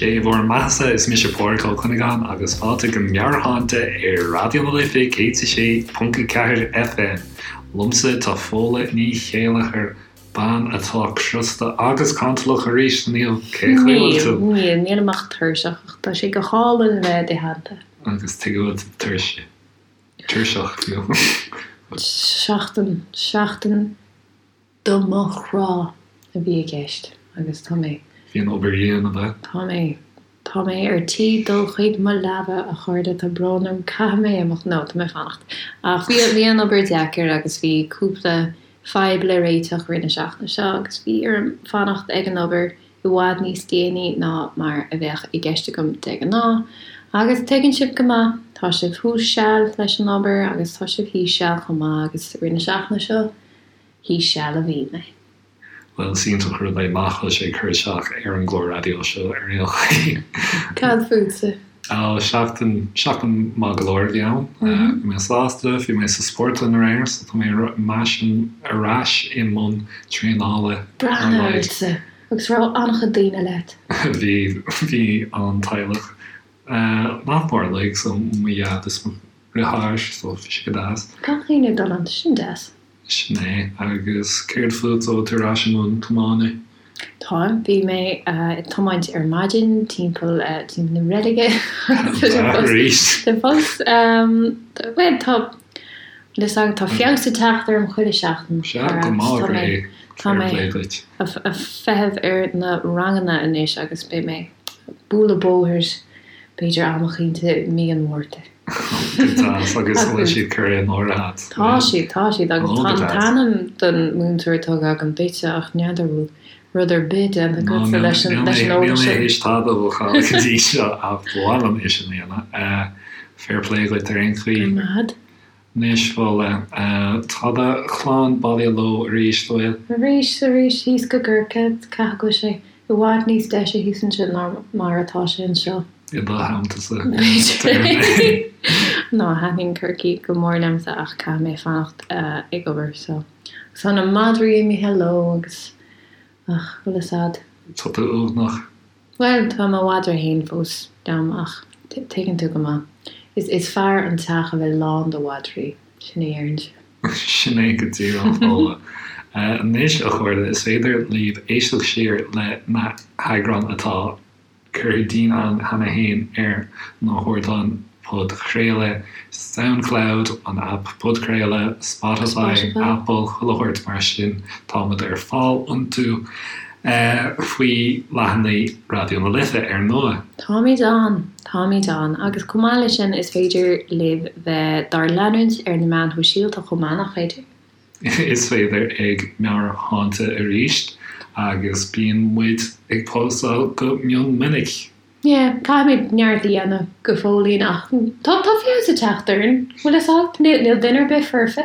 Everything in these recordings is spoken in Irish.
Sé bhur mbeathasa, is mise Pádraig Ó Cuinneagáin agus fáilte go Meabhairshláinte ar Raidió na Life 106.4 FM. Liomsa tá Fódhla Ní Chéilleachair, bean atá crosta agus cantalach arís inniu. Cén chaoi a bhfuil tú? Níl, níl, nílim ach tuirseach ach tá sé go hálainn a bheith i do theannta. Agus tuige a bhfuil tú tuirse, tuirseach fiú? Seachtain, seachtain do mo chrá a bhí i gceist agus tá mé. Bhí an obair dhian, ab ea? Tá mé. Tá mé ar tí dul chuig mo leaba, a chairde, tá brón orm, caithfidh mé imeacht, no, tá mé ag fanacht. Ach bhí, bhí an obair deacair agus bhí cúpla fadhb le réiteach i rith na seachtaine seo agus bhí orm fanacht ag an obair i bhfad níos déanaí ná mar a bheadh i gceist agam de ghnáth. Agus tuigeann sibh go maith, tá sibh thuas seal leis an obair agus tá sibh thíos seal chomh maith agus i rith na seachtaine seo, Thíos seal a bhí mé. Bhuel, is iontach an rud é nach bhfuil sé ag cur isteach ar an gclár raidió seo ar aon chaoi. Cad fútsa? Ó, seachtain, seachtain maith go leor a bhí ann. Bhí mé sásta, bhí mé sa spórtlann aréir so tá mé ar ais i mbun traenála ar Breathnaigh ortsa! Agus raibh an-chuid daoine leat? Bhí, bhí an teaghlach nach mór uilig, so mo dhaid is mo dheartháir, so bhí sé go deas. Gach éinne ag dul ann, sin deas. Sin é. Agus céard fút, an bhfuil tú ar ais i mbun tiomána? Táim. Bhí mé ag tiomáint ar maidin timpeall timpeall na reilige. Arís? Tá fós, bhuel, tá, bhfuil fhios agat, tá feabhas ag teacht orm chuile sheachtain. Sea, go maith, tá mé, tá mé ag feitheamh ar na ranganna anois agus beidh mé ag bualadh bóthair b'fhéidir am eicínt i mí an Mhárta. Go deas, agus an bhfuil siad curtha in áirithe agat? Tá siad, tá siad, agus tá an t-ainm don múinteoir tugtha agam duitse ach n'fheadar bhfuil rud ar bith déanta agatsa leis an eolas sin. Níl mé théis tada a bhookáil go dtí seo ach ba mhaith liom é sin a dhéanamh. Fair play dhuit ar aon chaoi. Go raibh maith agat. Anois, Fódhla, tá do chlann bailithe leo arís, an bhfuil? Arís, arís, thíos go gCorcaigh, caithfidh go bhfuil sé i bhfad níos deise thíos ansin ná mar atá sé anseo. I do theanntasa, B'fhéidir. No, thaitníonn Corcaigh go mór liomsa ach caithfidh mé fanacht ag obair so. Agus tá na madraí imithe leo agus, ach, bhfuil fhios a'd. Tá tú uaigneach. Bhuel, tá mo mhadra fhéin fós liom ach tuigeann tú go maith, is is fearr an teach a bheith lán de mhadraí, sin a déarfainnse. Sin é go díreach, Fódhla. Anois, a chairde, is féidir libh éisteacht siar le na heagráin atá curtha dínn againn cheana féin ar na hardáin podchraoladh, Soundcloud, an aip podchraoladh, Spotify, Apple, chuile shórt mar sin, táimid ar fáil iontu faoi leathanaigh Raidió na Life, ar ndóigh. Táimid ann! Táimid ann! Agus chomh maith leis sin, is féidir libh bheith dár leanúint ar na meáin shóisialta chomh maith, nach féidir? Is féidir, ag Meabhairshláinte arís, agus bíonn muid ag póstáil go mion minic. Yeah, caithfimid neart a dhéanamh go fóillín ach tá tá feabhas ag teacht orainn, bhfuil fhios agat, níl duine ar bith foirfe.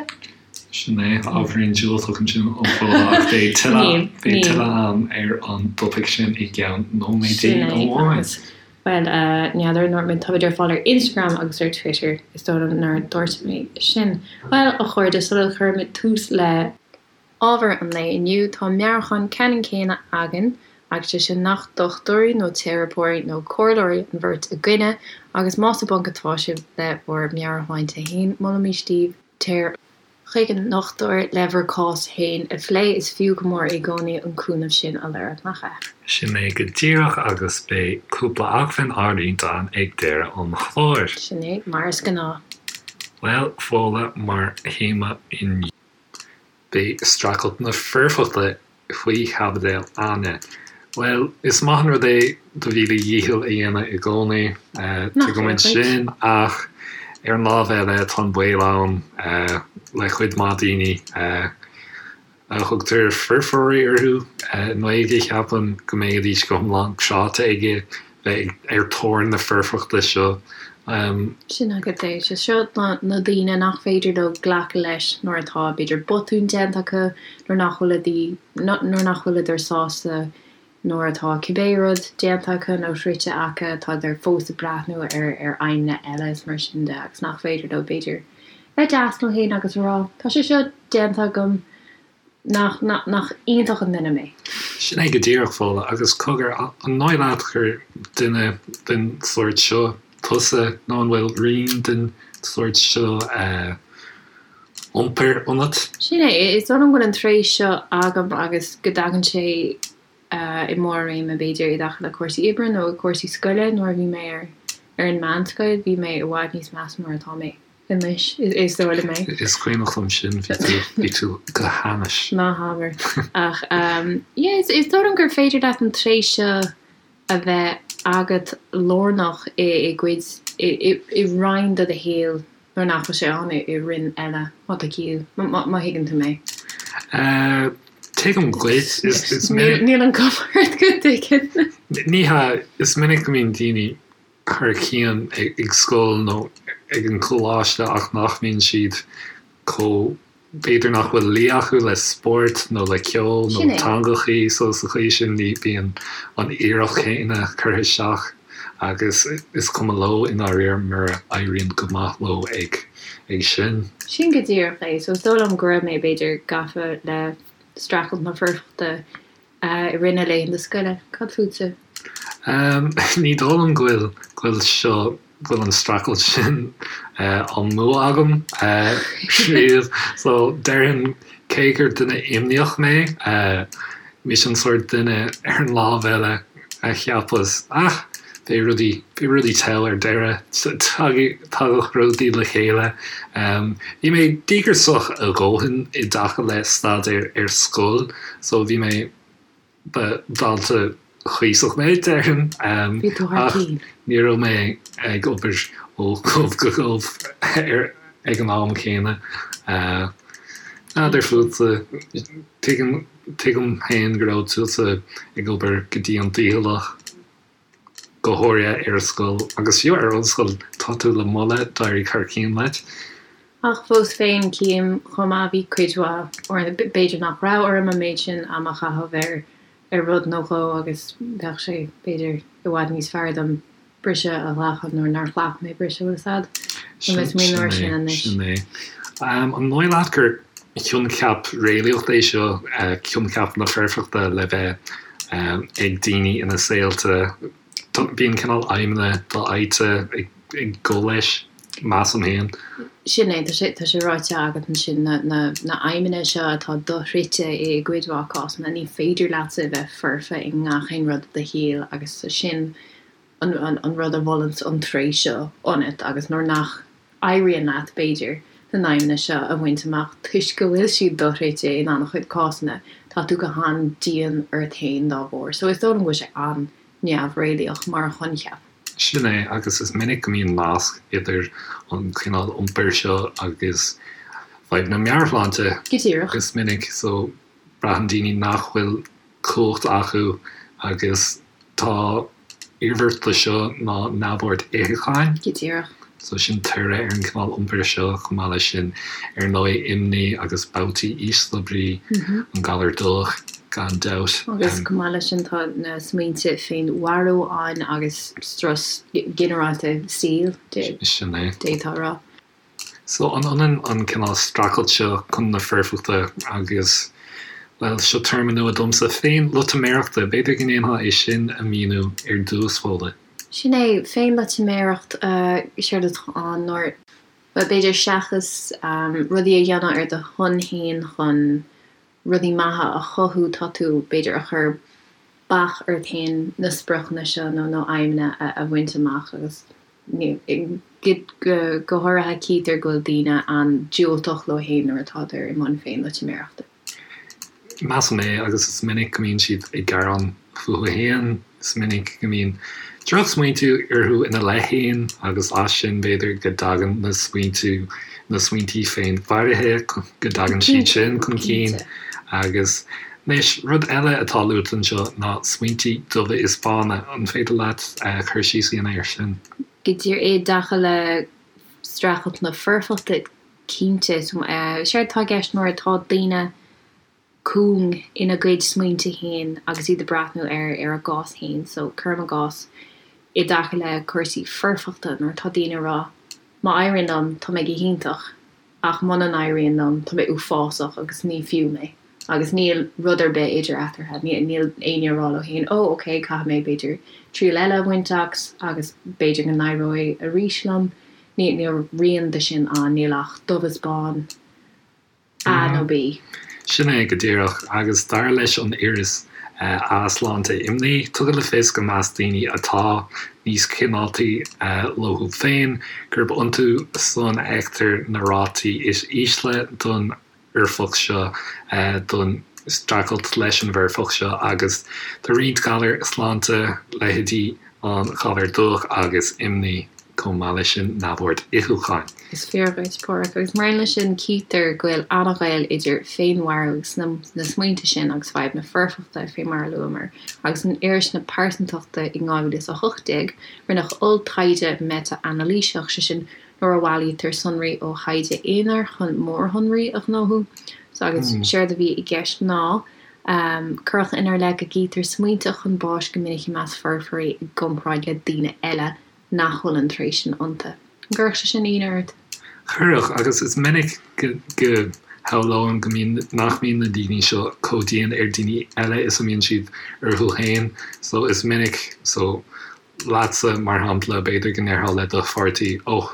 Sin é, ábhairín diúltach ansin ó Fódhla ach beidh tuilleadh beidh tuilleadh ann ar an dtopaic sin i gceann nóiméidí Sin é, amháin. agus bhuel, n'fheadar, an ndúirt mé, táimid ar fáil ar Instagram agus ar Twitter, is dóigh liom nár dúirt mé sin. Bhuel, a chairde, sula gcuirimid tús le. Ábhar an lae inniu, tá meabhrúchán ceannann céanna againn, agus sé sin nach dochtúirí nó teiripeoirí nó comhairleoirí an bheirt againne, agus más i bponc atá sibh le bhur meabhairshláinte féin, molaimís daoibh téir chuig an ndochtúir le bhur cás féin a phlé, is fiú go mór i gcónaí an cúnamh sin a lorg, nach ea? Sin é go díreach, agus beidh cúpla acmhainn á roinnt againn ag deireadh an chláir. Sin é, mar is gnáth. Bhuel, Fódhla, mar théama inniu. Beidh streachailt na foirfeachta faoi chaibidil againne. Bhuel, is maith an rud é do mhíle dhícheall a dhéanamh i gcónaí, tuigimid sin, ach ar an lámh eile tá an baol ann le cuid mhaith daoine a thugtar foirfeoirí orthu i nGaeilge, cheapfainn, go mbeidís go hiomlán cráite ag bheith ar thóir na foirfeachta seo. Sin agat é. Sé seo na daoine nach féidir leo glacadh leis nuair atá, b'fhéidir, botún déanta acu, nuair nach bhfuil nuair nach bhfuileadar sásta nuair atá cibé rud déanta acu nó sroichte acu, tádar fós ag breathnú ar ar aidhmeanna eile is mar sin de agus nach féidir leo, b'fhéidir, bheith deas leo féin agus a rá, tá sé seo déanta agam, Nach, nach, nach iontach an duine mé? Sin é go díreach, Fódhla, agus cogar, an ndóigh leat gur duine den sórt seo tusa nó an bhfuil rian den sórt seo iompair ionat? Sin é, is dóigh liom go bhfuil an tréith seo agam agus go dtagann sé i mbarr a réime, b'fhéidir, i dtaca le cúrsaí oibre nó i cúrsaí scoile. Nuair a bhí mé ar ar an meánscoil, bhí mé i bhfad níos measa ná mar atá mé anois, is dóigh liom é. Is cuimhneach liom sin, bhí tú, bhí tú go hainnis. Ná habair. Ach yeah, is dóigh liom gur féidir leat an tréith seo a bheith agat lárnach i gcuid, i roinn de do shaol nuair nach bhfuil sé ann i roinn eile, má tá ciall, má thuigeann tú mé. Tuigim dhuit. Is minic. Níl an cuma ort go dtuigeann. Ní hea, is minic go mbíonn daoine thar cionn ag scoil nó ag an choláiste ach nach mbíonn siad chomh B'fhéidir nach bhfuil luí acu le spórt nó le ceol nó teangachaí so sa chaoi sin ní bhíonn an iarracht chéanna curtha isteach agus is cuma leo i ndáiríre mura éiríonn go maith leo ag ag sin. Sin go díreach é. So is dóigh liom go raibh mé b'fhéidir gafa le streachailt na foirfeachta i rith na laethanta scoile. Cad fútsa? Ní dóigh liom go bhfuil go bhfuil seo go bhfuil an streachailt sin á mbua agam riamh. So déarfainn cé gur duine imníoch mé, mise an sórt duine ar an lámh eile a cheapas ah beidh rudaí, beidh rudaí togha ar deireadh, tagadh rudaí le chéile. Bhí mé díograiseach a dhóthain i dtaca le staidéar ar scoil so bhí mé, ba dhalta cuíosach mé, déarfainn, ach ní raibh mé ag obair ó ghob go gob ag an am céanna. N'fheadar fútsa, tuigim, tuigim féin go raibh tusa ag obair go dian dícheallach. go háirithe ar scoil agus fiú ar ollscoil, tá tú le moladh, d'éirigh thar cionn leat. Ach fós féin, cím chomh maith, bhí cuid mhaith uaireanta, b'fhéidir nach raibh orm an méid sin ama a chaitheamh ar ar rud nó dhó agus bheadh sé, b'fhéidir, i bhfad níos fearr dom briseadh a ghlacadh nuair nár ghlac mé briseadh, bhfuil a fhios a'd? Tá mé ag smaoineamh air sin anois. Sin é. An ndóigh leat gur coincheap réalaíoch é seo, coincheap na foirfeachta le bheith ag daoine ina saolta. Bíonn cineál aidhmeanna dofhaighte ag gabháil leis, measaim féin. Sin é, tá sé, tá sé ráite agat ansin, na, na, na aidhmeanna seo atá doshroichte i gcuid mhaith cásanna, ní féidir leatsa a bheith foirfe i ngach aon rud i do shaol agus sin an, an rud a mholann an tréith seo ionat agus nuair nach éiríonn leat, b'fhéidir, na n-aidhmeanna seo a bhaint amach toisc go bhfuil siad doshroichte in an-chuid cásanna, tá tú go han-dian ort féin dá bharr. So is dóigh liom go bhfuil sé an-neamhréalaíoch mar choincheap. Sin é, agus is minic go mbíonn nasc idir an cineál iompair seo agus fadhbanna meabhairshláinte. Go díreach. Is minic, so braitheann daoine nach bhfuil cumhacht acu agus tá iarmhairt de seo ná neamhord itheacháin. Go díreach. So sin toradh ar an gcineál iompair seo, chomh maith leis sin, ar ndóigh, imní agus babhtaí ísle brí, an galar dubhach, gan dabht. Agus chomh maith leis sin tá na smaointe féinmharú ann agus strus ginearálta saoil, Sin é. d'fhéadfá a rá. So, an ionann an cineál streachailt seo chun na foirfeachta agus, bhuel, seo téarma nua domsa, féinloitiméireachta, b'fhéidir go ndéanfá é sin a mhíniú ar dtús, Fódhla. Sin é, féinloitiméireacht, séard atá ann nuair, bhuel, b'fhéidir seachas rudaí a dhéanamh ar do shon féin chun rudaí maithe a chothú, tá tú, b'fhéidir, a chur bac ort féin na spriocanna seo nó na aidhmeanna a bhaint amach agus. Go háirithe, cítear go bhfuil daoine an-diúltach leo féin nuair atádar i mbun féinloitiméireachta. Measaim é, agus is minic go mbíonn siad ag gearán fúthu féin, is minic go mbíonn drochsmaointiú orthu ina leith féin agus as sin b'fhéidir go dtagann na smaointiú, na smaointí féinmharaithe, go dtagann siad sin chun cinn agus Anois, rud eile atá luaite anseo ná smaointí dubha is bána. An féidir leat cur síos a dhéanamh air sin? Go díreach i dtaca le streachailt na foirfeachta, cinnte. Séard atá i gceist nuair atá daoine cúng ina gcuid smaointe féin agus iad ag breathnú ar ar a gcás féin. So, cuirim i gcás, i dtaca le cúrsaí foirfeachta, nuair atá daoine ag rá, má éiríonn liom, tá mé go hiontach. Ach muna n-éiríonn liom, tá mé uafásach agus ní fiú mé. Agus níl rud ar bith idir eatarthu, níl éinne ag rá leo féin, 'Ó, ok, caithfidh mé, b'fhéidir, triail eile a bhaint as agus b'fhéidir go n-éireoidh arís liom. Níl rian de sin ann, níl ach dubh is bán, A nó B. Sin é go díreach, agus dar leis an iris A-Sláinte Imní, tugadh le fios go measc daoine atá níos cineáltaí leo féin, gurb iontu san a fheictear na rátaí is ísle don fhoirfeacht seo don streachailt leis an bhfoirfeacht seo agus do roinnt galar sláinte, leithéidí an ghalair dubhach agus imní, chomh maith leis sin neamhord itheacháin. Is fíor dhuit, Páraic, agus mar aon leis sin cítear go bhfuil an-ghaol idir féinmharú agus na smaointe sin agus fadhb na foirfeachta, fé mar a luamar, agus in iris na pearsantachta in 2018 rinneadh olltaighde meitea-anailíseach, sé sin nuair a bhailítear sonraí ó thaighde aonair chun mórshonraí a ghnóthú. So agus séard a bhí i gceist ná, cuireadh inár leith go gcítear smaointe chun báis go minic i measc foirfeoirí i gcomparáid le daoine eile nach bhfuil an tréith sin iontu. An gcuirfeadh sé sin ionadh ort? Chuirfeadh, agus is minic go shamhlóinn go mbíonn, nach mbíonn na daoine seo chomh dian ar daoine eile is a mbíonn siad orthu féin. So is minic, so leatsa, mar shampla, b'fhéidir go ndéarfá le do pháirtí, 'Ó,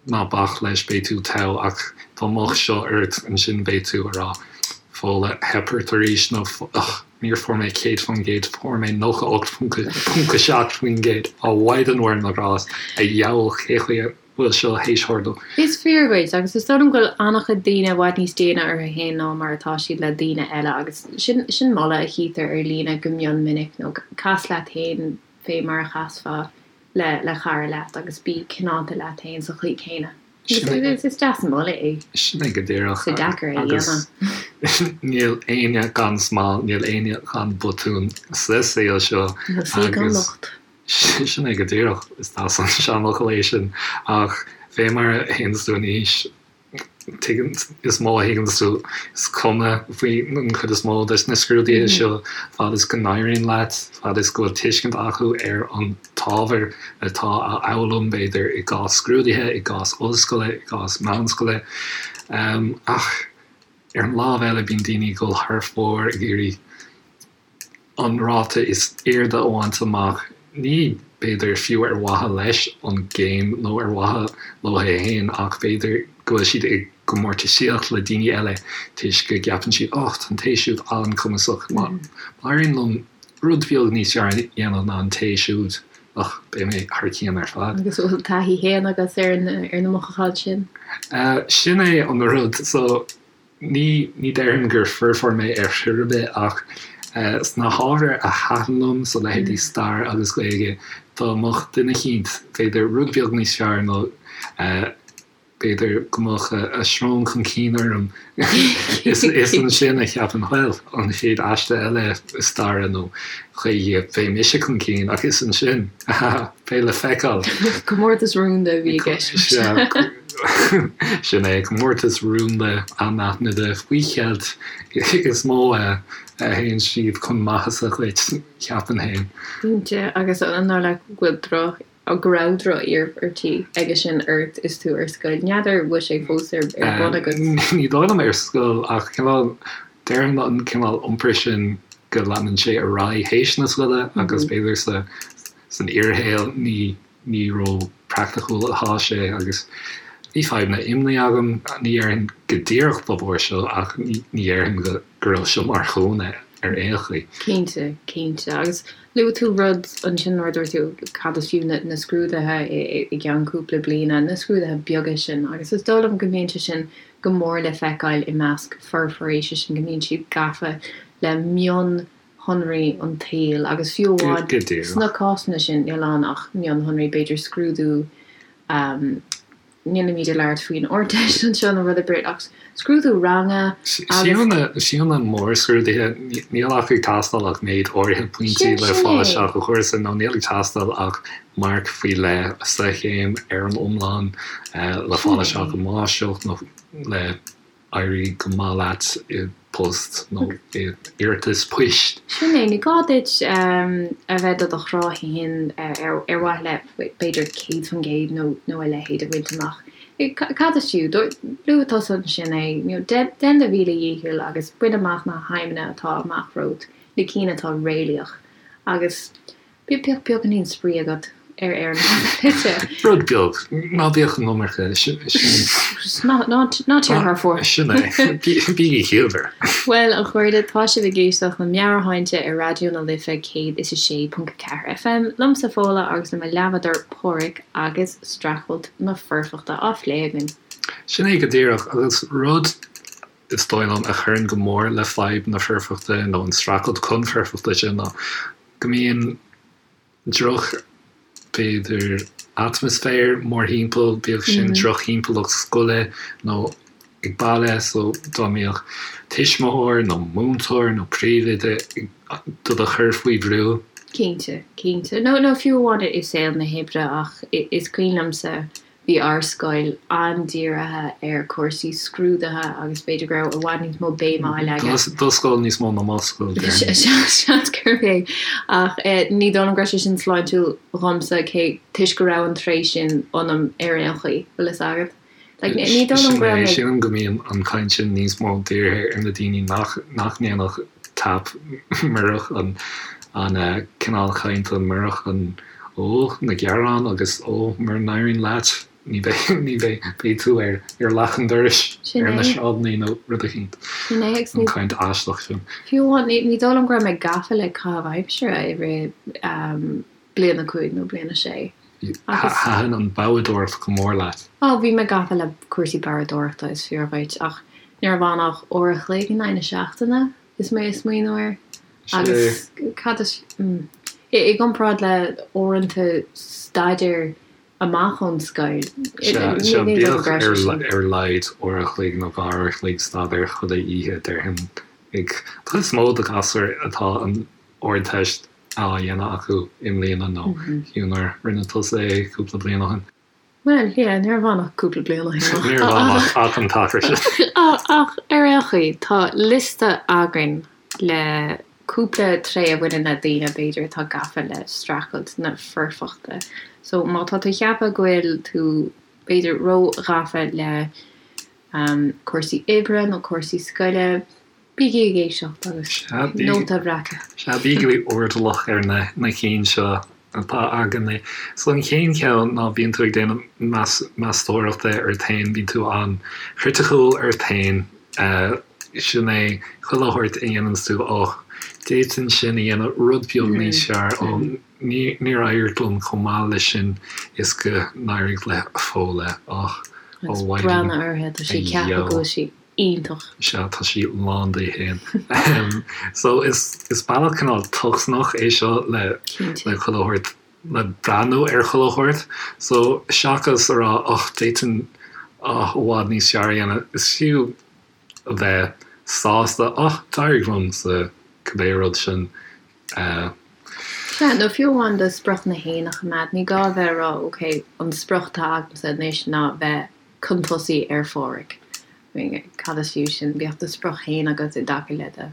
ná bac leis, beidh tú togha', ach dá mbeadh seo ort, ansin beidh tú ag rá, 'Fódhla, theip ort arís' nó 'Ugh, níor fuair mé 100%, fuair mé 98.7%, a Mhaighdean Mhuire na nGrást, a dheabhail, cé chaoi a bhfuil seo théis tharlú. Is fíor dhuit, agus is dóigh liom go bhfuil an-chuid daoine i bhfad níos déine orthu féin ná mar atá siad le daoine eile, agus sin sin moladh a chítear ar líne go mion minic, nó cas leat féin fé mar a chasfá le le cara leat agus bí cineálta leat féin sa chaoi céanna. Is is deas an moladh é. Sin é go díreach. Is deacair é a dhéanamh. Níl éinne gan smál, níl éinne gan botún sa saol seo. Níl saoi gan locht. Sin é go díreach, is deas an seanfhocal é sin, ach fé mar a théanns tú in aois, tuigeann, is mó a thuigeanns tú, is cuma faoi an chuid is mó de na scrúduithe seo, fad is go n-éiríonn leat, fad is go bhfuil tuiscint acu ar an t-ábhar atá á fhoghlaim, b'fhéidir, i gcás scrúduithe, i gcás ollscoile, i gcás meánscoile. Ach ar an lámh eile, bíonn daoine ag dul thar fóir ag iarraidh an ráta is airde a bhaint amach, ní, b'fhéidir, fiú ar mhaithe leis an gcéim nó ar mhaithe leo féin ach b'fhéidir go bhfuil siad i gcomórtaisíocht le daoine eile toisc go gceapann siad 'och, tá an té siúd an-chumasach, má éiríonn liom rud beag níos fearr a dhéanamh ná an té siúd, och, beidh mé thar cionn ar fad. Agus an bhfuil taithí féin agat ar na mothúcháin sin? Sin é an rud. So. Ní, ní déarfainn gur foirfeoir mé ar chor ar bith ach sna hábhair a thaitin liom, so leithéidí stair agus Gaeilge, dá mbeadh duine eicínt, b'fhéidir, rud beag níos fearr nó b'fhéidir go mbeadh a srón chun cinn orm, is ansin a cheapainn, bhuel, an chéad aiste eile staire nó Gaeilge, beidh mise chun cinn ach is ansin, beidh le feiceáil. Comórtas rúnda a bhí i gceist. Sin é, comórtas rúnda anaithnide faoi cheilt is mó a théann siad chun maitheasa dhuit, cheapfainn féin. Cinnte, agus an dóigh leat go bhfuil droch, go raibh droch-iarmhairtí aige sin ort is tú ar scoil? N'fheadar bhfuil sé fós ar bun agat? Ní dóigh liom ar scoil ach cineál, déarfainn an cineál iompair sin go leanann sé ar aghaidh théis na scoile agus b'fhéidir sa san fhíorshaol ní ní ró-praiticiúil atá sé agus bhí fadhbanna imní agam, ní dhéarfainn go díreach dá bharr seo ach ní dhéarfainn go go raibh seo mar chúinne ar aon chaoi. Cinnte, cinnte. Agus luaigh tú rud ansin nuair a dúirt tú cad is fiú na scrúduithe i gceann cúpla bliana, na scrúduithe beaga sin agus is dóigh liom go mbíonn sé sin go mór le feiceáil i measc foirfeoirí, sé sin go mbíonn siad gafa le mion shonraí an tsaoil agus fiú amháin sna cásanna sin níl ann ach mionshonraí, b'fhéidir scrúdú, nílimid ag labhairt faoin Ardteist anseo nó rud ar bith ach scrúdú ranga agus. Fiú na mórscrúduithe, níl ach ag teastáil ach méid áirithe pointí le fáil isteach i gcúrsa nó níl ag teastáil ach marc faoi leith sa chéim ar an iomlán le fáil isteach i máistreacht nó le éirí go maith leat i bpost nó i iarratas poist. Sin é, ní gá duit a bheith do do chrá féin ar mhaithe le b'fhéidir 100% nó a leithéid a bhaint amach. Cad is fiú? Luaigh tusa ansin é, you know, déan do mhíle dhícheall agus bain amach na haidhmeanna atá amach romhat, na cinn atá réalaíoch agus bíodh beagáinín spraoi agat ar ar an taobh eile. Rud beag, ná bíodh an iomarca, sin. Ná ná téir thar fóir. Sin é, bígí ciallmhar. Bhuel, a chairde, tá sibh ag éisteacht le Meabhairshláinte ar Raidió na Life 106.4 FM, liomsa Fódhla agus le mo leathbhádóir Páraic agus streachailt na foirfeachta á phlé againn. Sin é go díreach, agus rud, is dóigh liom, a chuireann go mór le fadhb na foirfeachta nó an streachailt chun foirfeachta sin ná go mbíonn droch, b'fhéidir, atmaisféar mórthimpeall, bíodh sin drochthimpeallacht scoile nó ag baile, so dá mbeadh tuismitheoir nó múinteoir nó príomhoide do do chur faoi bhrú. Cinnte, cinnte. Nó, nó fiú amháin i saol na hoibre ach is cuimhin liomsa bhí ár scoil an-dírithe ar chúrsaí scrúduithe agus b'fhéidir go raibh i bhfad níos mó béime á leagan. Do scoil níos mó ná mo scoil, déarfainn. Seans gurb é. Ach ní dóigh liom go raibh sé sin sláintiúil dhomsa cé toisc go raibh an tréith sin ionam ar aon chaoi, bhfuil fhios agat. Like, ní dóigh liom go raibh mé. Sílim go mbíonn an chaint sin níos mó dírithe ar na daoine nach nach ndéanfadh tap murach an an cineál cainte, murach an Ó, na gearáin agus ó, mura n-éiríonn leat, ní bheidh, ní bheidh, beidh tú ar, ar leac an dorais, Sin ar na é. sráideanna nó rud eicínt. Sin é agus An ní, chaint aisteach sin. fiú amháin, ní, ní dóigh liom go raibh mé gafa le caitheamh aimsire i rith um, bliain a 5 nó bliain a 6. Agus. Thaitin an boghdóireacht go mór leat. Ó, bhí mé gafa le cúrsaí boghdóireachta, is fíor dhuit, ach ní raibh ann ach uair a chloig in aghaidh na seachtaine. Is mé ag smaoineamh air. Agus cad is, i gcomparáid le uaireanta staidéir amach ón scoil, Sea, bíodh ar a laghad uair a chloig nó dhá uair a chloig staidéir chuile oíche, déarfainn. Ag cuid is mó de ghasúir atá an Ardteist á dhéanamh acu i mbliana nó fiú nuair a rinne tusa é cúpla bliain ó shin. Bhuel, yeah, ní raibh ann ach cúpla bliain ó shin. Ní raibh ann ach an t-achar sin. Ach ar aon chaoi, tá liosta againn le cúpla tréith a bhaineann le daoine, b'fhéidir, atá gafa le streachailt na foirfeachta. So, má tá tú ag ceapadh go bhfuil tú, b'fhéidir, ró-ghafa le cúrsaí oibre nó cúrsaí scoile, Bígí ag éisteacht agus nóta a bhreacadh. Sea, bígí airdeallach ar na cinn seo atá againne. So an chéad cheann ná bíonn tú ag déanamh meastóireachta ort féin, bíonn tú an-chriticiúil ort féin. Sin é chuile shórt a dhéananns tú, och, d'fhéadfainn sin a dhéanamh rud beag níos fearr, ó, níor éirigh liom chomh maith leis sin is go n-éirigh le Fódhla, och, ó Agus breathnaigh uirthi, tá sí ag ceapadh go bhfuil sí. iontach. Sea, tá sí lán di féin. So, is is bealach cineál tocsaineach é seo le le chuile shórt, le breathnú ar chuile shórt. So, seachas a rá och, d'fhéadfainn oh, i bhfad níos fearr a dhéanamh, is fiú a bheith sásta, och, d'éirigh liom sa cibé rud sin. Sea, nó fiú amháin do spriocanna féin a choimeád, ní gá a bheith ag rá, ok, an sprioc atá agamsa anois ná bheith chun tosaigh ar Pháraic. I mean, cad is fiú sin? Bíodh do sprioc féin agat i dtaca le do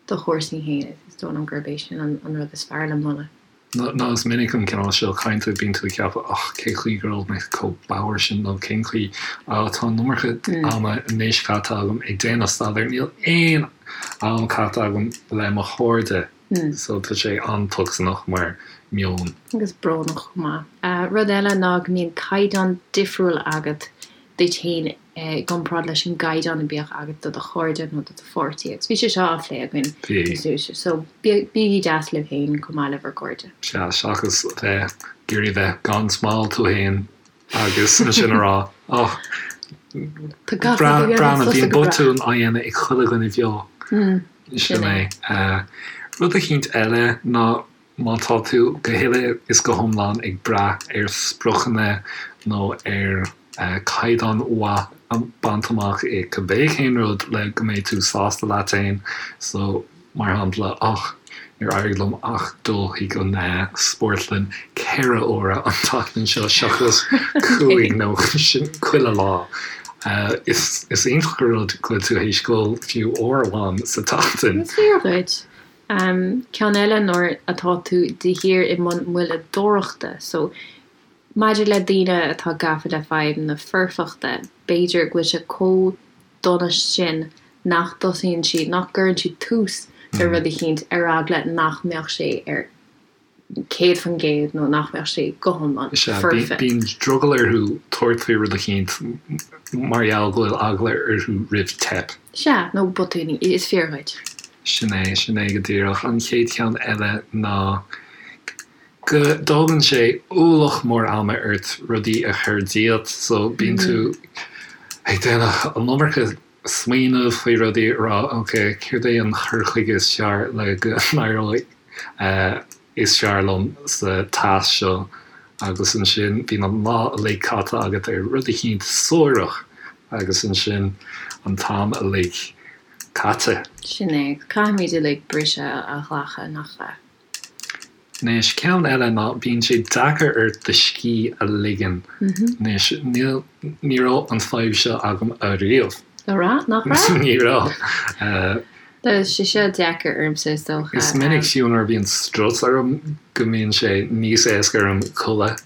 do chúrsaí féin. Is dóigh liom gurb é sin an an rud is fearr le moladh. Nó is minic an cineál seo cainte, bíonn tú ag ceapadh, och, cén chaoi go raibh mé chomh bodhar sin nó cén chaoi, ah, tá an iomarca ama anois caite agam ag déanamh staidéir, níl aon am caite agam le mo chairde. So tá sé an-tocsaineach mar meon. Agus brónach chomh maith. Rud eile ná go mbíonn caighdeán difriúil agat duit féin i gcomparáid leis an gcaighdeán a bhíodh agat do do chairde nó do do pháirtí. Agus bhí sé seo á phlé againn níos luaithe. So bígí deas libh féin chomh maith le bhur gcairde. Sea, seachas bheith ag iarraidh bheith gan smál tú féin agus ansin a rá, oh, breathnaigh, bíonn botúin á dhéanamh ag chuile dhuine bheo. Sin é. Rud eicínt eile ná má tá tú go huile is go hiomlán ag brath ar spriocanna nó ar chaighdeán mhaith a bhaint amach i cibé cén rud le go mbeidh tú sásta leat féin, so Mar shampla, och, níor éirigh liom ach dul chuig an spórtlann 4 huaire an tseachtain seo seachas 5 nó sin chuile lá. Is iontach an rud go bhfuil tú théis dul fiú uair amháin sa tseachtain. Is fíor dhuit. Ceann eile nuair atá tú de shíor i mbun moilleadóireachta. So. Maidir le daoine atá gafa le fadhb na foirfeachta, b'fhéidir go bhfuil sé chomh dona sin nach dtosaíonn siad, nach gcuireann siad tús le rud eicínt ar eagla nach mbeadh sé ar 100% nó nach mbeadh sé go hiomlán foirfe. Bíonn drogall orthu tabhairt faoi rud eicínt mar gheall go bhfuil eagla orthu roimh teip. Sea, nó botúin, is fíor dhuit. Sin é, sin é go díreach. An chéad cheann eile ná go dtógann sé ualach mór ama ort rudaí a chur díot, so bíonn tú ag déanamh an iomarca smaoineamh faoi rudaí, a rá ok, céard é an cur chuige is fearr le go n-éireoidh is fearr liom sa tasc seo agus ansin bíonn an lá uilig caite agat ar rud eicínt suarach agus ansin an t-am uilig caite. Sin é, caithfimid uilig briseadh a ghlacadh, nach ea? Anois, ceann eile ná bíonn sé deacair ort do scíth a ligean. Anois, níl, ní raibh an fadhb seo agam ariamh. Nach raibh? Nach raibh? Ní raibh. Tá sé seo deacair ormsa, is dócha. Is minic fiú nuair a bhíonn strus orm go mbíonn sé níos éasca orm codladh.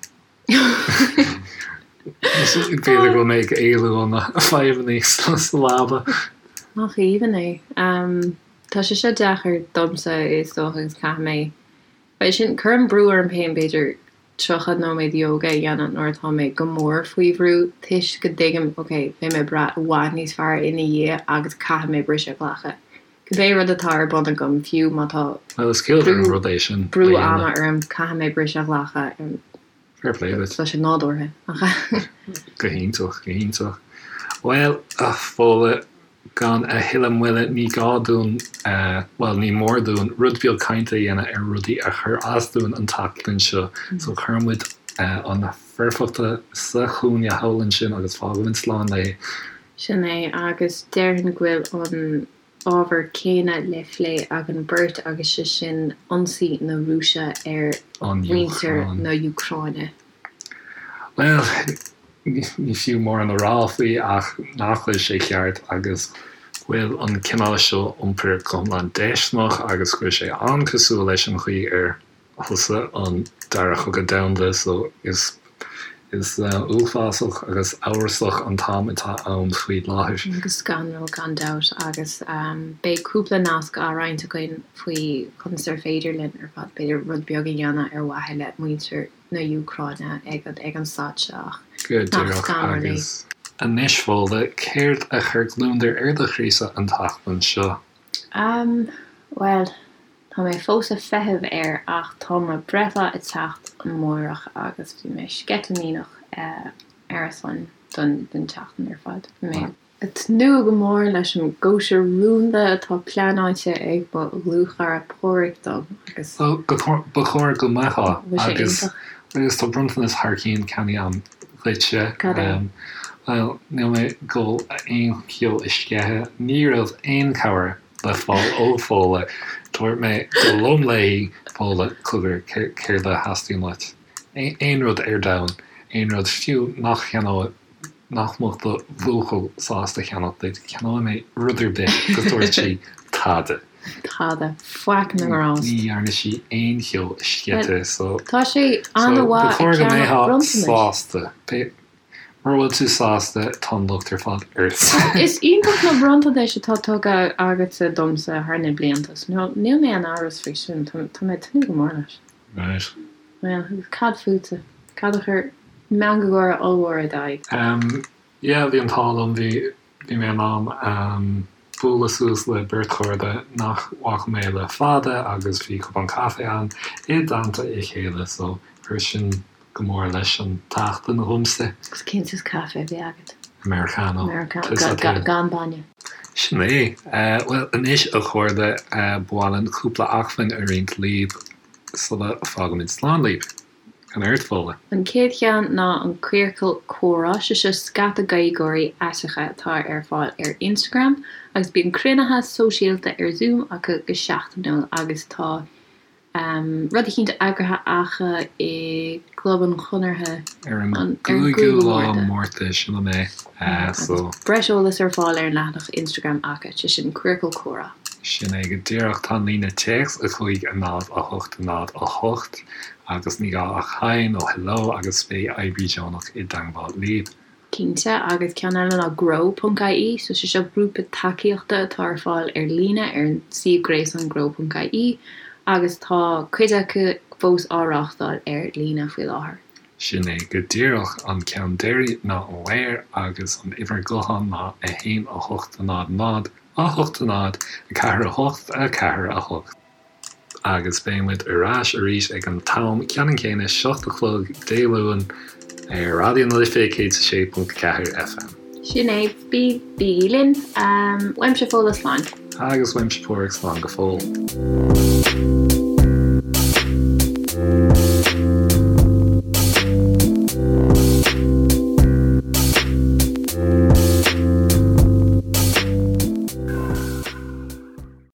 B'fhéidir go bhfuil mé ag éalú ó na fadhbanna sa leaba. Nach aoibhinn é. Tá sé seo deacair domsa is dócha agus caithfidh mé, bhuel sin, cuirim brú orm féin b'fhéidir 30 nóiméad ióga a dhéanamh nuair atá mé go mór faoi bhrú toisc go dtuigim ok, beidh mé breá i bhfad níos fearr ina dhiaidh agus caithfidh mé briseadh a ghlacadh. Cibé rud atá ar bun agam, fiú má tá Bhuel is ciallmhar an rud é sin a brú ama orm, caithfidh mé briseadh a ghlacadh. Fair play duit. Tá sé nádúrtha, nach ea? Go hiontach, go hiontach. Bhuel, a Fódhla, gan a thuilleadh moille, ní gá dúinn, bhuel, ní mór dúinn rud beag cainte a dhéanamh ar rudaí a chuir as dúinn an tseachtain seo. So cuireann muid an foirfeacht sa chúinne thall ansin agus fágaimid slán léi. Sin é, agus déarfainn go bhfuil an ábhar céanna le phlé againn beirt agus sé sin ionsaí na Rúise ar mhuintir na Úcráine. Bhuel, ní fiú mórán a rá faoi ach nach bhfuil sé ceart agus go bhfuil an cineál seo iompair go hiomlán déisteanach agus go bhfuil sé an-cosúil leis an chaoi ar thosaigh an Dara Cogadh Domhanda so is is uafásach agus amhrasach an t-am atá ann faoi láthair. Go scanrúil gan dabht agus beidh cúpla nasc á roinnt againn faoi conas ar féidir linn ar fad b'fhéidir rud beag a dhéanamh ar mhaithe le muintir na hÚcráine ag an ag an staid seo ach Go nach díreach scanrúil é. agus anois Fódhla, céard a chuir gliondar ar do chroísa an tseachtain seo? Am, bhuel, Tá mé fós ag feitheamh air ach tá mo breithlá ag teacht amárach agus bhí mé sceitimíneach ar a son don tseachtain ar fad. Bhí mé ag tnúth go mór leis an gcóisir rúnda atá pleanáilte ag mo dhlúthchara Páraic dom agus. Ba chóir go mbeifeá agus agus tá bronntanas thar cionn ceannaithe agam dhuitse. Cad é? Bhuel, níl mé ag dul aon cheo a sceitheadh. Ní raibh aon cabhair le fáil ó Fódhla. Dúirt mé go lom léi, Fódhla, cogar, céard a theastaíonn uait? Aon rud ar domhan, aon rud, fiú nach cheannóidh, nach mbeadh do bhuachaill sásta a cheannach duit, ceannóidh mé rud ar bith, agus dúirt sí, tada. Tada. Faic na ngrást. Ní dhearna sí aon cheo a sceitheadh, so. Tá sé an-mhaith ag ceannach bronntanais. Sásta. Mura bhfuil tú sásta, tá an locht ar fad ort. Is iontach na bronntanais atá tugtha agatsa domsa thar na blianta, so níl mé in amhras faoi sin, tá mé ag tnúth go mór leis. Right. Bhuel, agus cad fútsa? Cad a chuir meangadh gáire ollmhór ar d'aghaidh? Em, yeah, bhí an t-ádh liom, bhí, bhí mé in ann, em, bualadh suas le beirt chairde nach bhfaca mé le fada agus bhí cupán caife ann i dteannta a chéile, so chuir sin go mór leis an tseachtain dhomsa. Agus cén saghas caife a bhí agat? Americano. Americano, gan bainne. Sin é. Bhuel, anois a chairde, ba mhaith linn cúpla acmhainn a roinnt libh sula bhfágaimid slán libh. An ort, Fódhla? An chéad cheann ná an Queercal Comhrá, sé seo scata Gaeilgeoirí aiteacha atá ar fáil ar Instagram agus bíonn cruinnithe sóisialta ar Zoom acu go seachtainiúil agus tá Rud eicínt eagraithe acu i gClub an Chonartha ar an gcúigiú lá Márta, sin an é. Agus breis eolais ar fáil ar an leathanach Instagram acu, sé sin Queercal Comhrá. Sin é go díreach. Tá an líne téacs 5 0 8 0 8 agus ní gá ach Hi nó Hello agus beidh oibrí deonach i dteangmháil libh. Cinnte, agus ceann eile ná Grow ponc ie, so sé seo grúpa tacaíochta atá ar fáil ar líne ar an suíomh gréasáin grow ponc ie agus tá cuid acu fós á reáchtáil ar líne faoi láthair. Sin é go díreach. An ceann deiridh ná Aware agus an uimhir gutháin ná 1 8 0 0 8 0 4 8 4 8. Agus beidh muid ar ais arís ag an t-am ceannann céanna, 7 a chlog Dé Luain, ar Raidió na Life 106.4 FM. Sin é, bí, bígí linn. Uaimse Fódhla, slán. Agus uaimse Páraic, slán go fóill.